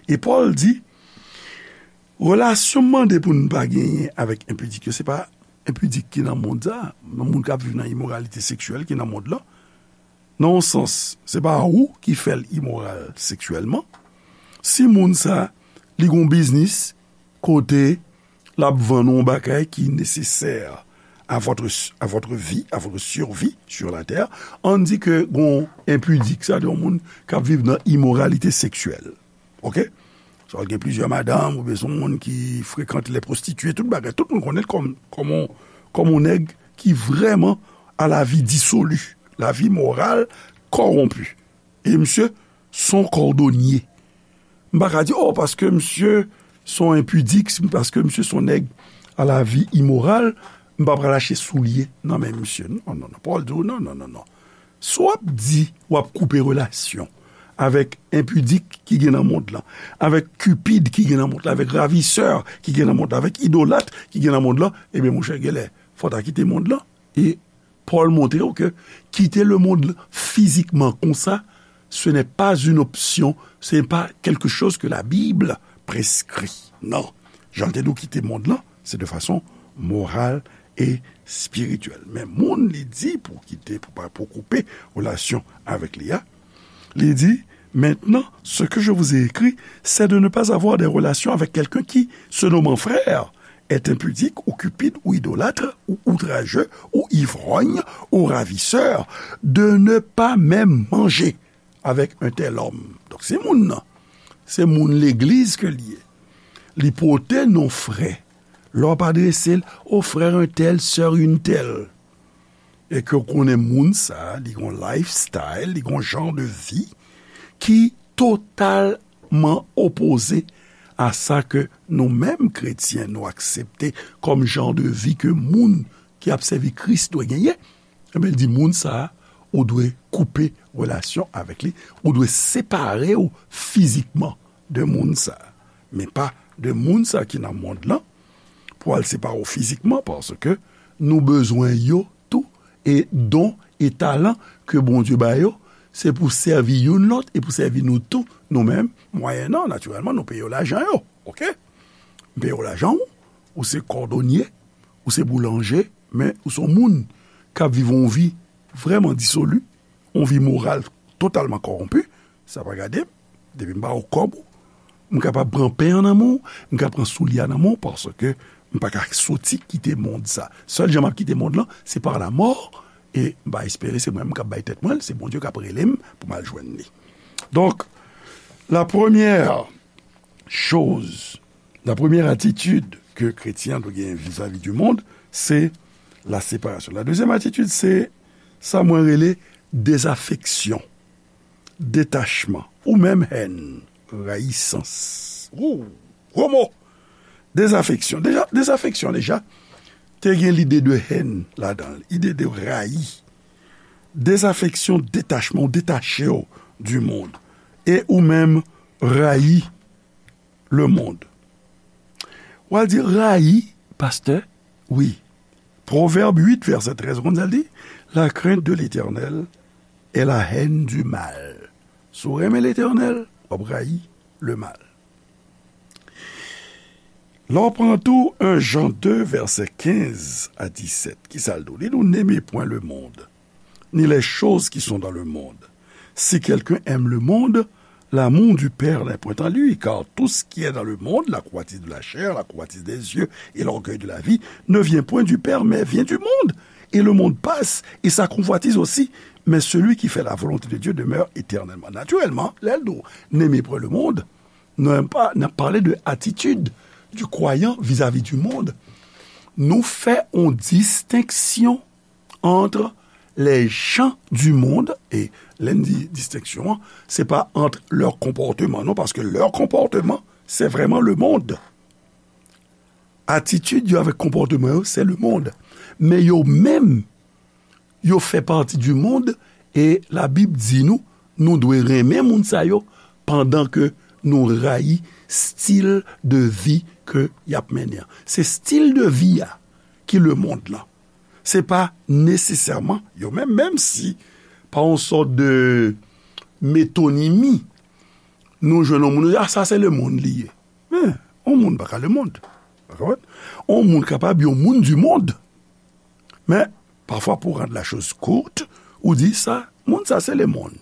E Pòl di, relasyon m mande pou n pa genyen avèk enpidik yo, se pa enpidik ki nan mond sa, nan moun k ap viv nan imoralite seksyèl ki nan mond lan. Nan yon sans, se pa ou ki fè l imoral seksyèlman. Si moun sa, li gon biznis kote l ap vann yon bagay ki nesesè à votre, à votre vie, à votre survie sur la terre, ann di ke gon enpidik, sa vle di yon moun k ap viv nan imoralite seksyèl. Oke? Swa l gen plizyè madanm, oubyen se yon moun ki frekante les prostituées, tout bagay, tout moun konnen l kòm, kòm yon, kòm yon nèg ki vrèman à la vie dissolue, la vie morale corrompue. E misye se yon kòdonye. M pa ka di, oh, paske misye se yon enpidik, paske misye se yon nèg à la vie imorale, m pa pral achte soulye nan men misye. Non, non, non. Pòl di w, non, non, non, non. Si w ap di w ap koupe relasyon avèk enpidik ki gen nan mond lan, avèk kipid ki gen nan mond lan, avèk ravisè ki gen nan mond lan, avèk idolat ki gen nan mond lan, ebyen, monchè, genlè, fò w ta kite mond lan. E Pòl montre w ke kite lemonn fizikman konsa, ce n'est pas une option, ce n'est pas quelque chose que la Bible prescrit. Non. Jan l te di w kite mond lan, se de fason moral e espirityèl. Men moun li di pou kite, pou pa, pou koupe relasyon avèk li a, li di, maintenant, ce que je vous ai écrit, c'est de ne pas avoir des relations avec quelqu'un qui, se nommant frère, est impudique ou cupide ou idolâtre ou outrageux ou ivrogne ou ravisseur, de ne pas même manger avec un tel homme. Donk, se moun nan, se moun legliz ke li ye. Li pote non frè. Lè w ap adrese l, o frè entèl, sè entèl. E ke w konnen moun sa, li gon lifestyle, li gon jan de vi ki totalman opoze a sa ke nou menm kretyen nou aksepte kòm jan de vi ke moun ki ap sèvi Kris dwe genyen. Ebyen, l di moun sa, ou dwe koupe relasyon avèk li, ou dwe separe w fizikman de moun sa, men pa de moun sa ki nan mond lan, pou al separe w fizikman, paske nou bezwen yo tou, e don e talan ke Bondye ba yo, se pou sèvi youn lòt e pou sèvi nou tou, nou menm, mwayennan, natirèlman, nou peye yo lajan yo, oke? M peye w lajan w, ou se kòdonye, ou se boulanje, men ou se yon moun k ap viv yon vi vrèman disoli, yon vi moral totalman kòwonpi, sa pa gade m, depi m ba w kòb ou, m kapab pran pen an nan men w, m ka pran soulye a nan men w, paske m pa ka soti kite mond sa. Sèl jan m ap kite mond lan, se par la mort, e m pa espere se mwen menm k ap bay tèt mwen l, se Bondye k ap rele m pou m al jwenn li. Donk, la première chose, La premyè atitid ke kretyen an dwe genyen vizavi di mond, se la separasyon. La dezyèm atitid, se sa mwen rele dezafeksyon, detachman, ou menm hèn, rayisans. Ou, gwo mo! Dezafeksyon. Deja, dezafeksyon, deja, te gen lide de hèn ladan l, lide de rayi. Dezafeksyon, detachman, ou detache w di mond. E ou menm rayi le mond. W a di rayi, pastè? Wi. Pwovèb uit, vèsè trèz, ou konn sa l di? La crainte de l'Éternel est la haine du mal. Si w renmen Letènèl, w ap rayi le mal. Lè w pran tou en Jan de, vèsè kenz a disèt, ki sa l di w? Li di w, n'aimez point le monde, ni les choses qui sont dans le monde. Si quelqu'un aime le monde, l'amour du Père n'est point en lui, car tout ce qui est dans le monde, la convoitise de la chair, la convoitise des yeux et l'orgueil de la vie, ne vient point du Père, mais vient du monde. Et le monde passe, et sa convoitise aussi, mais celui qui fait la volonté de Dieu demeure éternellement. Naturellement, lè l di w, n'aimez point le monde, nou pa, n ap pale de atitid du kwayan vizavi di mond. Nou fè yon distenksyon entre les gens du monde, e lè n di distenksyon an, se pa entre leur comportement, non, paske leur comportement, c'est vraiment le monde. Atitid yo avèk konpòteman yo, se le mond. Men yo menm, yo fè pati du monde, e Labib di nou, nou dwe renmen moun sa yo, pandan ke nou rayi stil de vi ke y ap mennen an. Se stil de vi a ki le mond lan. Se pa nesesèman yo menm, menm si pa yon sòt de metonimi, nou jwenn yon moun, nou di, "Ah, sa se le mond li ye." Men, yon moun pa ka le mond. Ou konprann? Yon moun kapab yon moun du monde. Men, pafwa, pou rand la chose courte, ou di sa, moun sa se le mond.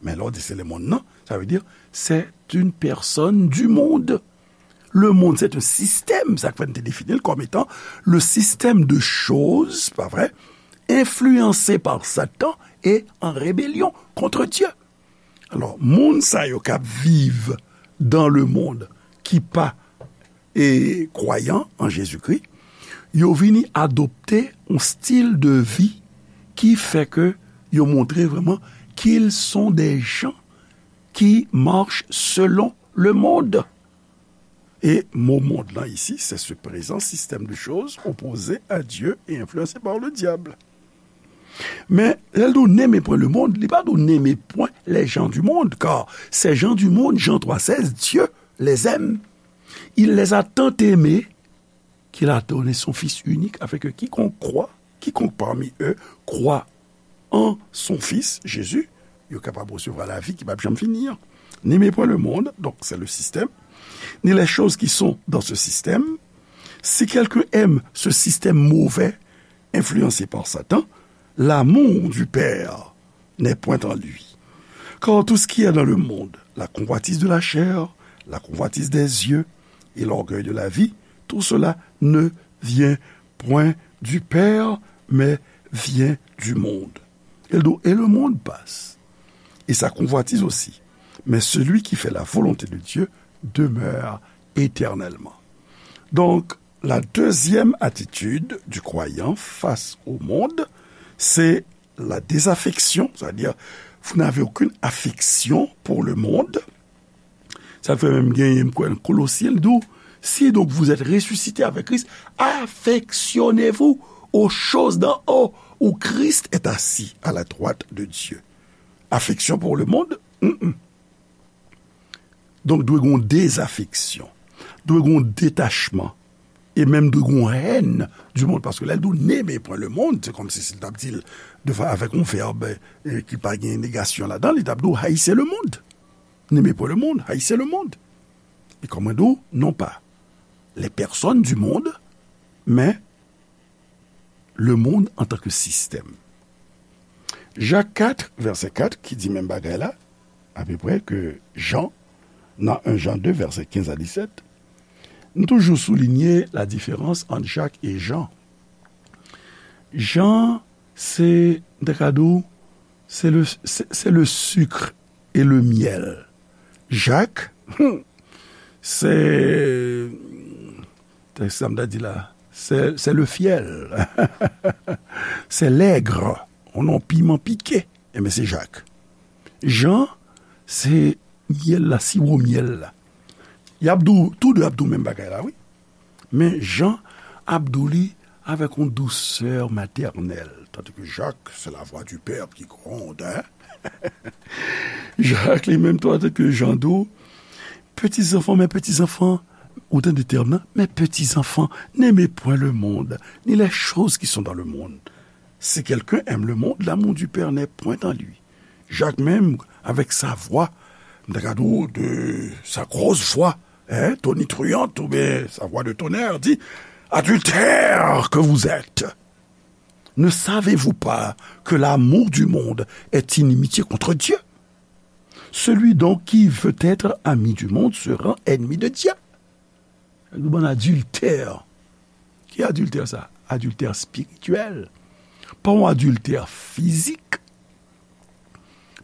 Men lè w di se le mond nan, sa vle di, c'est une personne du monde. Le monde, c'est un système, sa k fè n te defini l kòm etan le système de choses, pa vre, influencé par Satan et en rébellion contre Dieu. Alò, moun sa yo k ap viv dans le monde, ki pa, e, kwayan an Jezikri, yo vini adopte yon stil de vi ki fè ke yo montre vrèman qu'ils sont des gens qui marchent selon le monde. E mo mond lan isi, c'est ce présent système de choses opposé à Dieu et influencé par le diable. Men, lè l di w, n'aimez point le monde, li pa di w, n'aimez point les gens du monde, car ces gens du monde, Jean trois seize, Dieu les aime. Il les a tant aimés qu'il a donné son Fils unique, afin que quiconque croit, quiconque parmi eux croit en son Fils, Jésus, yo kapab resevwa lavi ki p ap janm fini an. N'aimez point le monde, donc c'est le système, ni les choses qui sont dans ce système. Si quelqu'un aime ce système mauvais, influencé par Satan, l'amour du Père n'est point en lui. Car tout ce qui est dans le monde, la convoitise de la chair, la convoitise des yeux et l'orgueil de la vie, tout cela ne vient point du Père, mais vient du monde. Et le, et le monde passe, et sa convoitise aussi. Mais celui qui fait la volonté de Dieu demeure éternellement. Donc, la deuxième attitude du croyant face au monde, c'est la désaffection, c'est-à-dire, vous n'avez aucune affection pour le monde. Sa fè menm genyen, m kwè, nan Kolosyen, l di w, si donc vous êtes ressuscité avec Christ, affectionnez-vous aux choses d'en haut, où Christ est assis à la droite de Dieu. Affection pour le monde? Mm-mm. Donk, dwe gen yon dezafeksyon, dwe gen yon detachman, e menm dwe gen yon hèn du monde, paske lè l di w n'aimez point le monde, se kòmsi si l t ap di l de fa-, avèk yon vèb, e, ki pa gen negasyon ladan l, li t ap di w haïssez le monde. N'aimez point le monde, haïssez le monde. E kòm mwen di w, non pa les personnes du monde, men le monde en tant que système. Jak kat, vèsè kat, ki di menm bagay la, apeprè ke Jan, nan en Jan de, vèsè kenz a disèt, nou toujou soulinye la diferans ant Jak e Jan. Jan, se, m ta ka di w, se le, se, se le sucre et le miel. Jak, hmm, se Tèks sa m ta di la, c'est, c'est le fiel. C'est l'aigre. On non piman pike. Enben, se Jak. Jan, se myèl la, siwo myèl la. Y ap di w, tou de ap di w menm bagay la, wi. Men Jan ap di w li avèk yon dousè matènèl. Tandis que Jacques, c'est la voix du Père qui gronde, hein? Jak li menm tou, tandis que Jan di w, petits enfants, mes petits enfants, ou tande tèm nan, mes petits enfants, n'aimez point le monde, ni les choses qui sont dans le monde. Si quelqu'un aime le monde, l'amour du Père n'est point en lui. Jak menm, avèk sa vwa, m ta ka di w de sa gros voix, hein, tonitruante, oubyen sa voix de tonnerre, di, adultères que vous êtes, ne savez-vous pas que l'amour du monde est inimitié contre Dieu? Celui donc qui veut être ami du monde se rend ennemi de Dieu. Nou bann adiltè. Ki adiltè sa? Adiltè espirityèl. Pa yon adiltè fizik,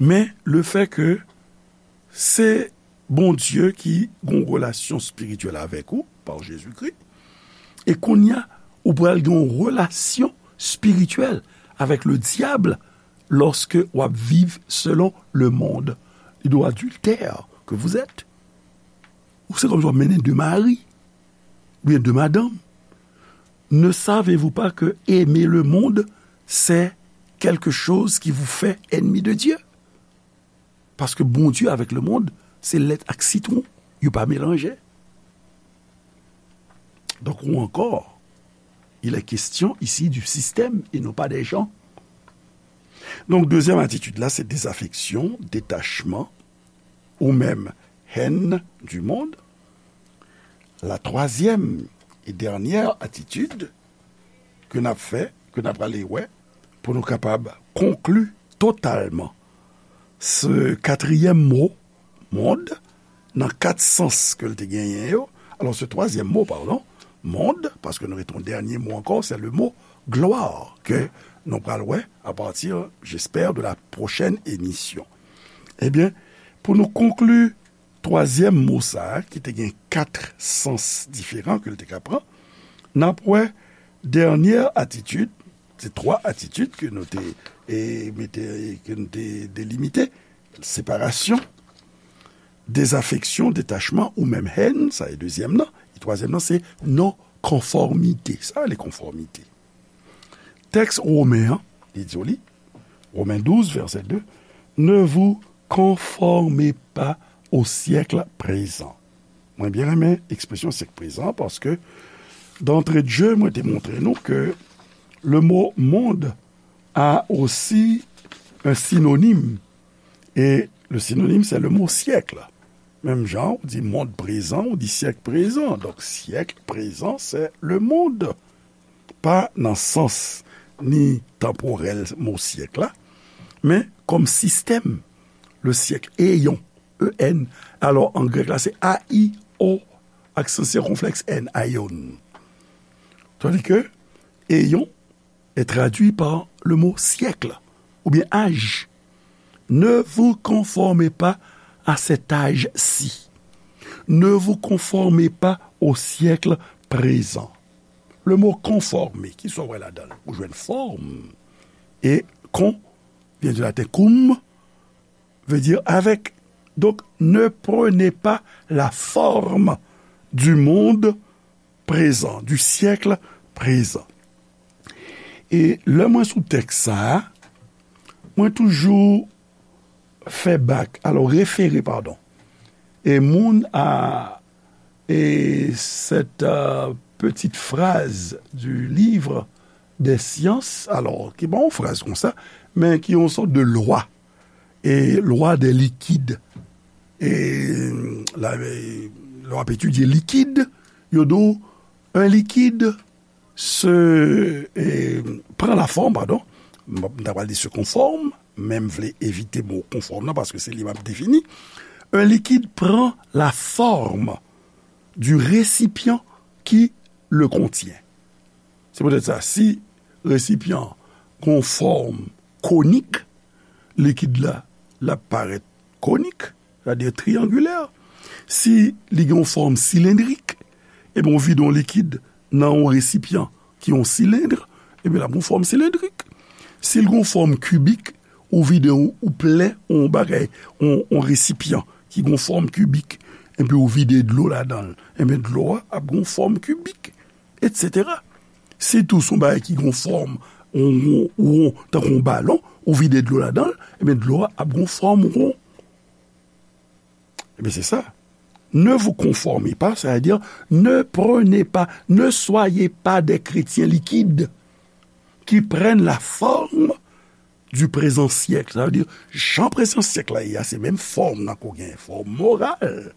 men le fait que se Bondye ki gen yon relasyon espirityèl avèk ou, pa Jezikri, e kounye a, ou pral gen yon relasyon espirityèl avèk le dyab, lòske w ap viv selon le monde. Li di w adiltè que vous êtes. Ou se kòmsi w ap mennen de mari, oubyen de madanm. Ne savez-vous pas que aimer le monde, c'est quelque chose qui vous fait ennemi de Dieu? Paske Bondye avèk le monde, se lèt ak sitwon. Yo pa melanje. Donk, ou ankò, il est question ici du système et non pas des gens. Donk, dezyèm atitid la, se dezafeksyon, detachman, ou menm haine du monde. La troisième et dernière attitude ke n ap fè, ke n ap ale wè, pou nou kapab konkli totalman se katriyèm mo, monde, nan kat sans ke l te genyen yo. Alò, se twazyèm mo, padon, monde, paske nou rete yon dènye mo ankò, se le mo gloire, ke nou pral wè à partir, j'espère, de la prochaine émission. Ebyen, pou nou konkli twazyèm mo sa a, ki te gen kat sans diferan ke l te ka pran, n ap wè dènye atitid, se twa atitid ke nou te, e, mete, ke nou te delimite, separasyon, dezafeksyon, detachman ou menm haine, sa e dezyèm nan, e twazyèm nan se non konfòmite. Sa rele konfòmite. Tèks Women an, li di w li, Romains douze, verset deux, ne vous conformez pas au siècle présent. Mwen byen renmen ekspresyon syèk prezan, paske, d'entrée de jeu, mwen te montre nou ke le mot monde a aussi un synonyme. Et le synonyme, c'est le mot siècle. Menm jan, ou di monde présent, ou di siècle présent. Donk, siècle présent, c'est le monde. Pa nan sans ni tanporèl mo syèk la, men kòm sistèm, le siècle, aion, E N. Alò, an grèk la, se A I O, aksan sikonflèks N, aion. Tandis que aion est traduit par le mot siècle, ou bien âge. Ne vous conformez pas à cet âge-ci. Ne vous conformez pas au siècle présent. Le mot conformer, ki sa w wè ladan l? Ou jwenn form. E con vient du latin cum, veut dire avec. Donc, ne prenez pas la forme du monde présent, du siècle présent. E lè mwen sou tèks sa a, mwen toujou fè bak, alò, refere, padon, e moun a, e cette, euh, petite phrase du livre des sciences, alò, ki pa yon fraz konsa, men ki yon sòt de lwa, e lwa des liquides. E la, e, lè w ap etidye likid, yo di w, un liquide se, e, pran la forme, padon, m, m ta pral di se conforme, men m vle evite mo konfòm nan, paske se li m ap defini. Un liquide prend la forme du récipient qui le contient. Se poutèt sa, si resipyan gon fòm konik, likid la, l ap parèt konik, sètadi triyangilè. Si li gen yon fòm silendrik, Ebyen, ou vide yon likid nan yon resipyan ki yon silend, ebyen, l ap gen yon fòm silendrik. Si l gen yon fòm kibik, ou vide yon, ou plen yon bagay, yon, yon resipyan ki gen yon fòm kibik, epi ou vide dlo ladan l, ebyen, dlo a ap gen yon fòm kibik, etsetera. Si tou se yon bagay ki gen yon fòm, yon won, won, tankou yon balon, ou vide dlo ladan l, ebyen, dlo a ap gen yon fòm won. Ebyen, se sa. Ne vous conformez pas, sa vle di, ne prenez pas, ne soyez pas des chrétiens liquides qui prennent la forme du présent siècle. Sa vle di, jan prezan syèk la ye a, se menm fòm nan ke w gen, fòm moral,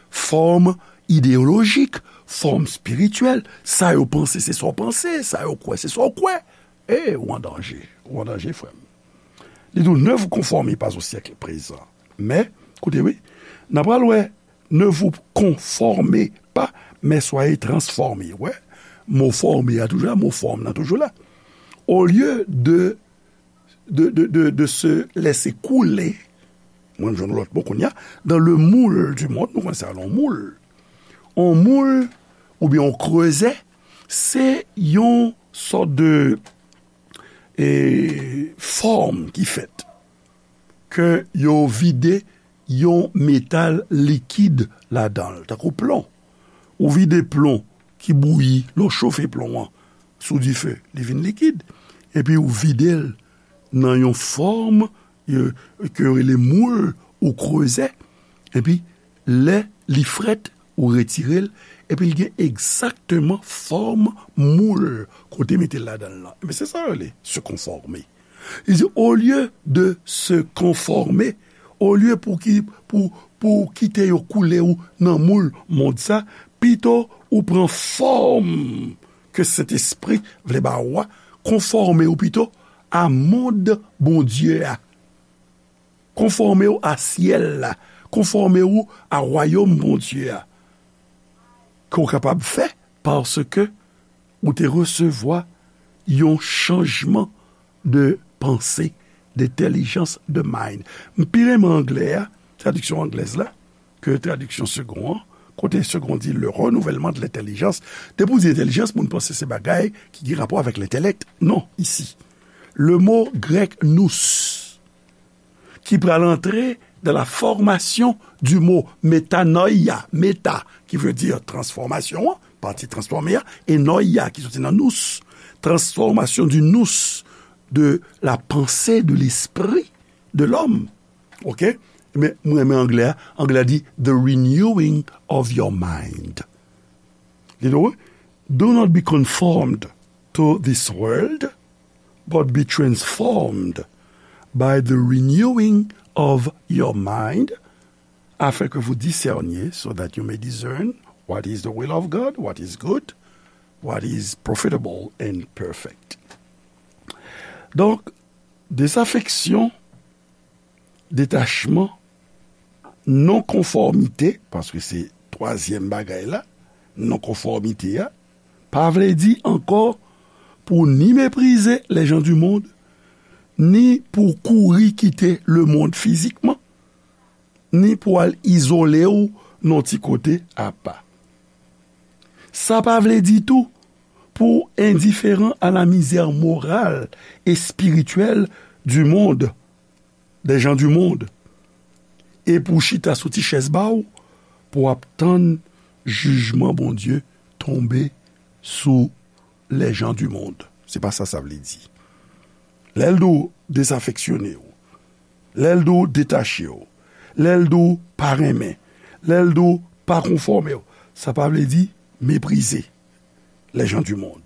fòm ideyolojik, fòm espirityèl. Sa yo panse, se sa w panse. Sa yo kwè, se sa w kwè. E, ou an danje. Ou an danje, frè m. Li di w, ne vous conformez pas au siècle présent. Men, koute, wi, n a pral wè, ne vous conformez pas, mais soyez transformés. Wè, mo fòme a toujou la, mo fòm nan toujou la. Au lieu de, de, de, de, de se laisser couler, mwen jwenn lòt mo kounye a, dans le moule du monde, nou konnen sa, yon moul. Yon moul, oubyen yon krezè, se yon sòt de, e, fòm ki fèt. Ke yo vide yon metal likid ladan l, tankou plon. Ou vide plon ki bouyi, lè w chofe plon an sou dife, li vin likid. Epi ou vide l nan yon fòm, e, ke yo rele moul ou krezè. Epi, lè li frèt, ou retire l, epi l gen egzakteman fòm moul kote mete l ladan l lan. Ebyen, se sa yo rele se konfòme. Li di, olye de se konfòme, olye pou ki, pou, pou kite yo koule w nan moul mond sa, pito ou pran fòm ke Sentespri vle ba ou a, konfòme w pito a mond Bondye a. Konfòme w a syèl la. Konfòme w a wayòm Bondye a. Ke w kapab fè, paske ou te resevwa yon chanjman de panse, de entèlijans, de mind. M pi renmen anglè a, tradiksyon anglèz la, ke tradiksyon Segond an, kote Segond di le renouvellement de l'intelligence. Depi w di entèlijans, moun panse se bagay ki gen rapò avèk lentelèk. Non, isi. Le mo grèk nous, ki pral antre dans la formation du mot metanoia, meta, ki vle di transfòmasyon an, pati transfòme a, e noia, ki soti nan nous, transformation du nous, de la pensée, de l'esprit de l'homme. Ok? Men, mwen renmen anglè a. Anglè a di, the renewing of your mind. Li di, do not be conformed to this world, but be transformed by the renewing of your mind, afin que vous discerniez, so that you may discern what is the will of God, what is good, what is profitable and perfect. Donk, dezafeksyon, detachman, non konfòmite, paske se twazyèm bagay la, non konfòmite a, pa vle di ankò pou ni meprize les gens du monde, ni pou kouri kite lemonn fizikman, ni pou al izole w nan ti kote apa. Sa pa vle di tou pou endiferan a la misère morale et spirituelle du monde, des gens du monde, e pou chita sou ti chèz ba w, pou w ap tann jijman Bondye tonbe sou les gens du monde. Se pa sa sa vle di. Lè l di w dezafeksyone w, lè l di w detache w, lè l di w pa renmen, lè l di w pa konfòme w, sa pa vle di meprize les gens du monde.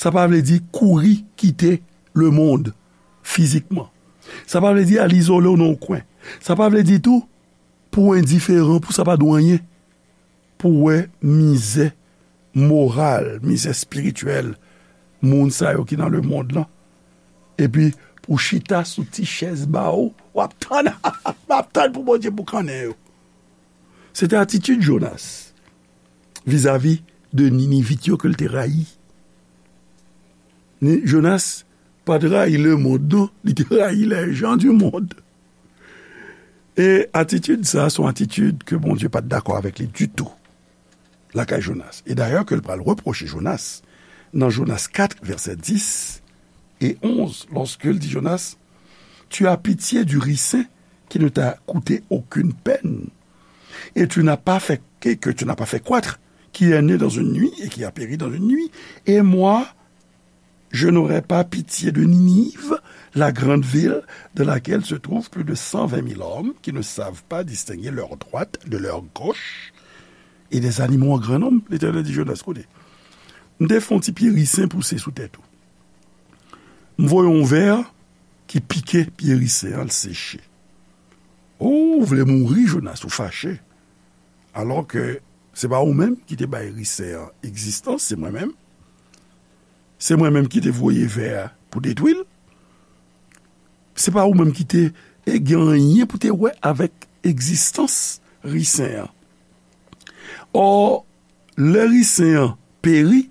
Sa pa vle di kouri kite lemonn fizikman. Sa pa vle di al izole w nan yon kwen. Sa pa vle di tou pou w endiferan, pou sa pa di w anyen, pou w wè mizè moral, mizè espirityèl moun sa yo ki nan lemonn lan. Epi pou chita sou ti chèz ba w, w ap tann, w ap tann pou Bondye boukannen yo. Se te atitid Jonas vizavi de Ninivit yo ke l te rayi. Ni, Jonas pa t rayi lemonn, non, li te rayi les gens du monde. E atitid sa, se yon atitid ke Bondye pa t dakò avèk li ditou. lakay Jonas. E dayè ke l pral repwoche Jonas, nan Jonas kat, vèsè dis e onz, lòske l di Jonas, Tu as pitié du ricin qui ne t'a coûté aucune peine, et tu n'as pas fait, que, que tu n'as pas fait croître, qui est né dans une nuit et qui a péri dans une nuit, et moi, je n'aurai pas pitié de Ninive, la grande ville dans laquelle se trouvent plus de cent vingt mille hommes qui ne savent pas distinguer leur droite de leur gauche, et des animaux en grand nombre. Letènèl di Jonas, koute, m te fè yon ti pye risen pouse sou tèt ou. M voye yon vè ki pike pye risen an, l seche. O, ou vle mouri, Jonas, ou fache. Alò ke se pa ou menm ki te bay risen an egzistans, se mwen menm. Se mwen menm ki te voye vè a pou detwi l. Se pa ou menm ki te, e, gen anyen pou te wè avèk egzistans risen an. Ò, lè risen an peri,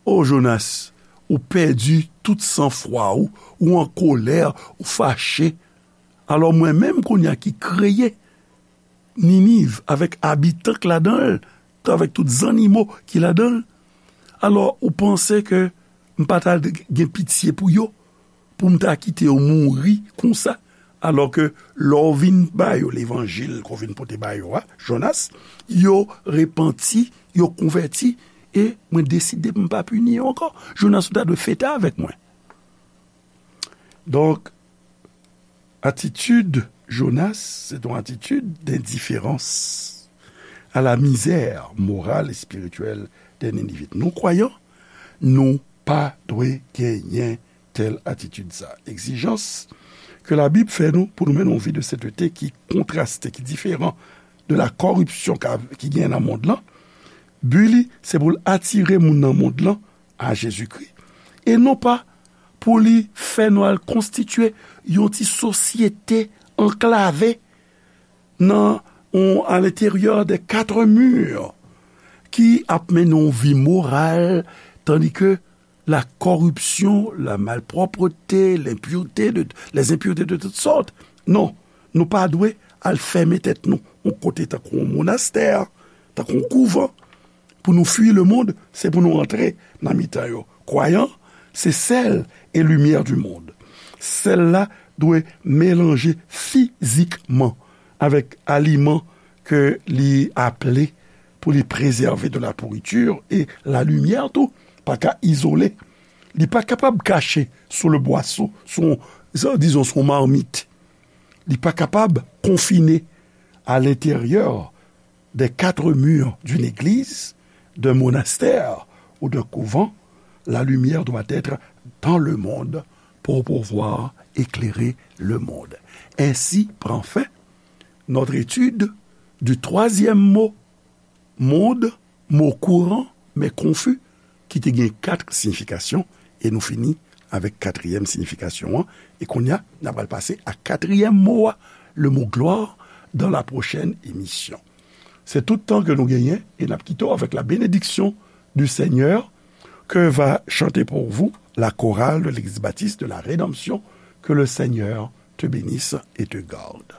o Jonas, ou pèdi tout sanfwa ou, ou an kolè, ou fache. Alò mwen menm kounye a ki kreye Niniv avèk abitan k ladan l, avèk tout zannimo ki ladan l. Alò ou panse ke m pa ta gen pitye pou yo, pou m ta kite yo mouri konsa? Alò ke lè w vin ba yo levanjil ke w vin pote ba yo a, Jonas, yo repanti, yo konvèti, e mwen deside m pa pini yo ankò. Jonas, ou ta dwe fete avèk mwen. Donk, atitid Jonas, se yon atitid dendiferans a la mizè moral e espirityèl dè Ninivit. Nou, kwayan, nou pa dwe genyen tèl atitid sa. Egzijans ke Labib fè nou pou nou mennen yon vi de senteté ki kontraste, ki diferan de la kòripsyon ka, ki gen nan mond lan. Bi li, se pou l atire moun nan mond lan a Jezikri, e non pa pou li fè nou al konstitye yon ti sosyete anklave nan, on, à l'intérieur des quatre murs, ki ap mennen yon vi moral, tandis que la corruption, la malpropreté, l'impureté de, les impuretés de toutes sortes. Non, nou pa dwe al fèmen tèt nou yon kote tankou yon monastè, tankou yon kouvan. Pou nou fui lemonn, se pou nou antre nan mitan yo. Kwayan, se sèl e limyè di monn. Sèl la dwe melanje fizikman avèk aliman ke li aple pou li prezève de la pourriture, e la limyè tou pa ka izole. Li pa kapab kache sou le bwaso, sou, dizon, sou marmit. Li pa kapab konfine à l'intérieur des quatre murs d'une église, d'un monastère ou d'un couvent. La lumière doit être dans le monde pour pouvoir éclairer le monde. Ainsi prend fin notre étude du troisième mot monde, mot courant, mais confus, ki te gen kat siyifikasyon, e nou fini avèk katriyèm siyifikasyon an, e kounye a, n ap al pase a katriyèm mo a, le mot gloire, dans la prochaine émission. Se tout tan ke nou genyen, e n ap kite w avèk la bénédiction du Seigneur que va chanter pour vous la chorale de l'Église baptiste de la Rédemption. Que le Seigneur te bénisse et te garde.